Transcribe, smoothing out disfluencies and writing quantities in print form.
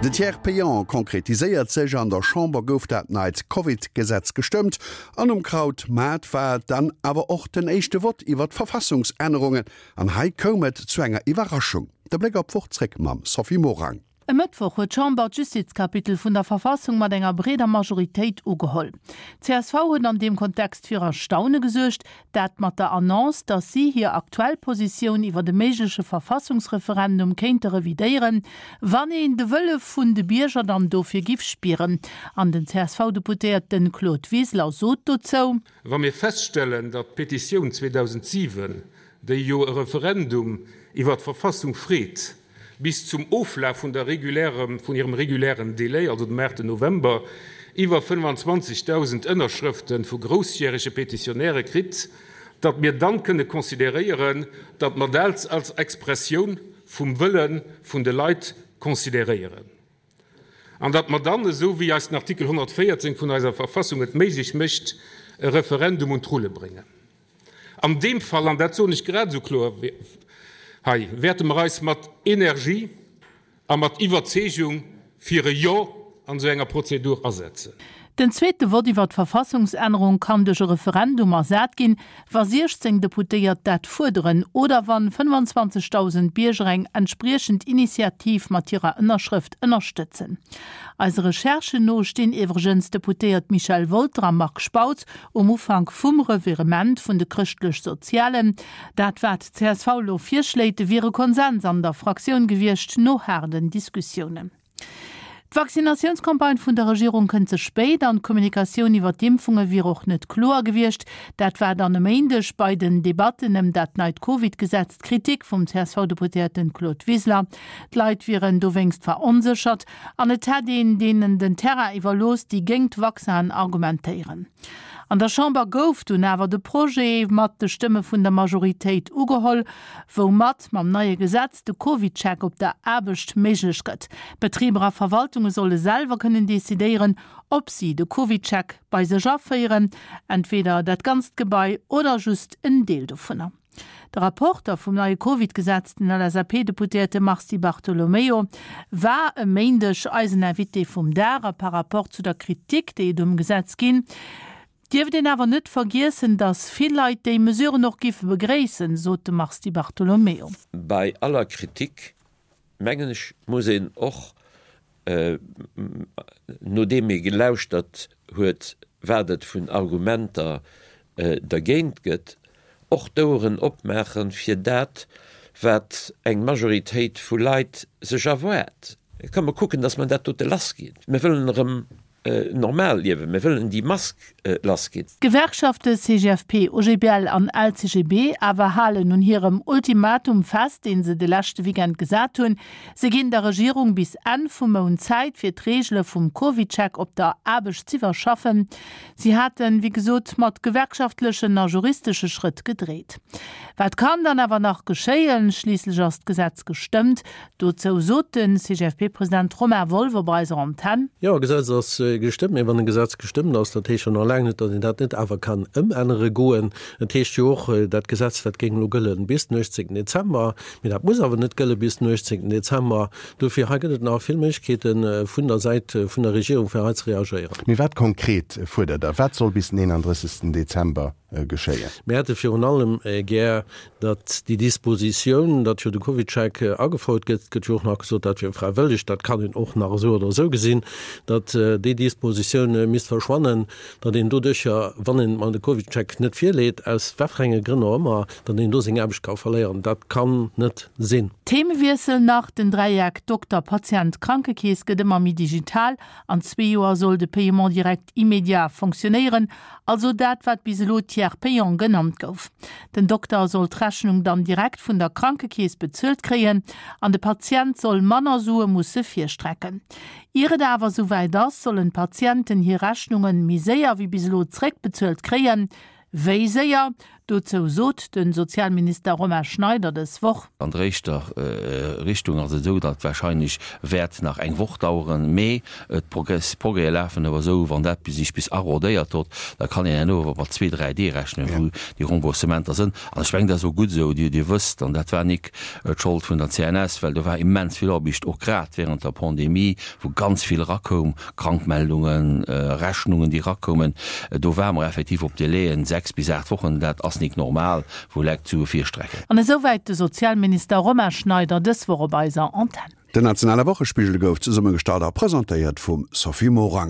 De Tiers payant konkretiséiert sech, An der Chamber gouf dat neit Covid-Gesetz gestëmmt an um Krautmaart war et dann awer och den éischte Vott iwwer d'Verfassungsännerungen. An hei koum et zu enger Iwwerraschung. De Bléck op d'Woch zréck mam Sophie Morang. E Mëttwoch huet d'Chamber d'Justizkapitel vun der Verfassung mat enger breeder Majoritéit ugeholl. Csv huet an deem Kontext fir Erstaune gesuergt, dat mat der Annonce, datt si hir aktuell Positioun iwwer e méigleche Verfassungsreferendum kéinte revidéieren, wann een de Wëlle vun de Bierger dann dofir giff spieren. An den CSV-Deputéierte Claude Wiseler sot dozou. Wa mir feststellen, datt d'Petitioun 2007, déi jo e Referendum iwwer d'Verfassung freet, bis zum Oflaf vun der regulärem, vun hirem regulären Délai, also dem 8 November, iwwer 25.000 Ënnerschrëfte vu groussjärege Petitionäre kritt, datt mir dann kënne consideréieren, datt mer dat als Expressioun vum Wëlle vun de Leit consideréieren an datt mer dann, esou wéi eis den Artikel 114 vun eiser Verfassung et méiglech mécht, e Referendum un d'Rulle bréngen. An deem Fall, an dat soen ech grad esou kloer hei, wäerte mer eis mat Energie a mat Iwwerzeegung fir e Jo an esou enger Prozedur asetzen. Den zweete Vott iwwer d'Verfassungsännerung kann duerch e Referendum ersat ginn, wa 16 Deputéiert dat fuerderen oder wann 25.000 Bierger eng entspriechend Initiativ mat hirer Ënnerschrëft ënnerstëtzen. Eise Recherchen no stinn iwwregens d'Deputéiert Michel Wolter a Marc Spautz Um Ufank vum Revirement vun de Chrëschtlech-Sozialen, dat wat d'CSV elo virschléit, wier e Konsens an der Fraktioun gewiescht, no haarden Diskussiounen. D'Vaccinatiounscampagne vun der Regierung kënnt ze spéit an d'Kommunikatioun iwwer d'Impfunge wier och net kloer gewiescht. Dat war dann e Méindeg bei den Debatten ëm dat neit Covid-Gesetz d'Kritik vum CSV-Deputéierten Claude Wiseler. D'Leit wieren dowéinst veronséchert. An et hätt een deenen den Terrain iwwerlooss, déi géingt d'Vaccinen argumentéieren. An der Chamber gouf dunn awer de Projet mat de Stëmme vun der Majoritéit ugeholl, woumat mam neie Gesetz de CovidCheck op der Aarbecht méiglech gëtt. Betriber a Verwaltunge solle selwer kënnen decidéieren, ob si de CovidCheck bei sech aféieren, entweder dat ganzt Gebai oder just en Deel dovunner. De Rapporter vum neie Covid-Gesetz, den LSAP-Deputéierte Mars Di Bartolomeo, war e Méindeg eisen Invité vum Dag. A par Rapport zu der Kritik, déi et um Gesetz ginn, dierft een awer net vergiessen, datt vill Leit déi Mesuren och giffe begréissen, sot de Mars Di Bartolomeo. Bei aller Kritik, mengen ech, muss een och nodeem ee gelauschtert huet, wat et vun Argumenter dergéint gëtt, och d'Oueren opmaache fir dat, wat eng Majoritéit vu Leit sech erwaart. Komm mer kucken, datt mer dat dote lassginn. Mir wëllen erëm normal liewen, mir wëllen déi Mask lassginn. D'Gewerkschafte CGFP, OGBL an LCGB awer halen un hirem Ultimatum fest, dee se de leschte Weekend gesat hunn. Se ginn der Regierung bis Enn vum Mount Zäit, fir d'Reegele vum CovidCheck op der Aarbecht z'iwwerschaffen. Si haten, wéi gesot, mat gewerkschaftlechen a juristesche Schrëtt gedreet. Wat kann dann awer nach geschéien? Schliisslech ass d'Gesetz gestëmmt. Dozou sot de CGFP-President Romain Wolff op eiser Antenn. Jo, e Gesetz ass gestëmmt. Mee wann e Gesetz gestëmmt ass, dat heescht jo nach laang net, datt een dat net awer kann ëmännere goen. Et heescht jo och, dat Gesetz, dat géing elo gëllen bis den 18 Dezember. Mee dat muss awer net gëlle bis den 18 Dezember. Dofir, hei gëtt et nach vill Méiglechkeete vun der Säit vun der Regierung, fir hei ze reagéieren. Mee wat konkret fuerdert Der? Wat soll bis den 31 Dezember geschéien? Mir hätte virun allem gär, datt déi Dispositioun, datt jo de CovidCheck agefouert gëtt, et gëtt jo och nach gesot, dat wier fräiwëlleg, dat kann een och nach esou oder esou gesinn, datt déi Dispositioun misst verschwannen, datt een doduercher, wann een de CovidCheck net virleet, aus wat fir enge Grënn och ëmmer, datt een do seng Aarbecht ka verléieren. Dat kann net sinn. Themewiessel nach, Den Dräieck Dokter-Patient-Krankekeess gëtt ëmmer méi digital. An zwee Joer soll de Paiement direct immédiat fonctionnéieren, also dat wat bis elo Tiers payant genannt gouf. Den Dokter soll d'Rechnung dann direkt vun der Krankekeess bezuelt kréien an de Patient soll manner Sue musse virstrecken. Ier et awer esouwäit ass, sollen d'Patienten hir Rechnunge méi séier wéi bis elo zréckbezuelt kréien. Wéi séier? Dozou sot de Sozialminister Romain Schneider dës Woch. An der éischter Richtung ass et esou, datt warscheinlech wäert nach eng Woch daueren, mee d'Progrèse lafen awer esou, wann dat sech bis arrodéiert hott, da kann een herno awer mat zwee, dräi Dee rechnen, wou déi Remboursementer sënn. An ech mengen, dat ass och gutt esou. Dir wësst, an dat war nik d'Schold vun der CNS, well do war immens vill Aarbecht, och grad während der Pandemie, wou ganz vill erakoum, Krankmeldungen, Rechnungen, déi erakoumen. Do ware mer effektiv op Délaiën, 6 bis 8 Wochen, dat ass nik normal, wou Lekt d'Sue virstrecken. An esouwäit de Sozialminister Romain Schneider dës Woch op eiser Antenn. Den nationale Wochespigel gouf zesummegestallt a presentéiert vum Sophie Morang.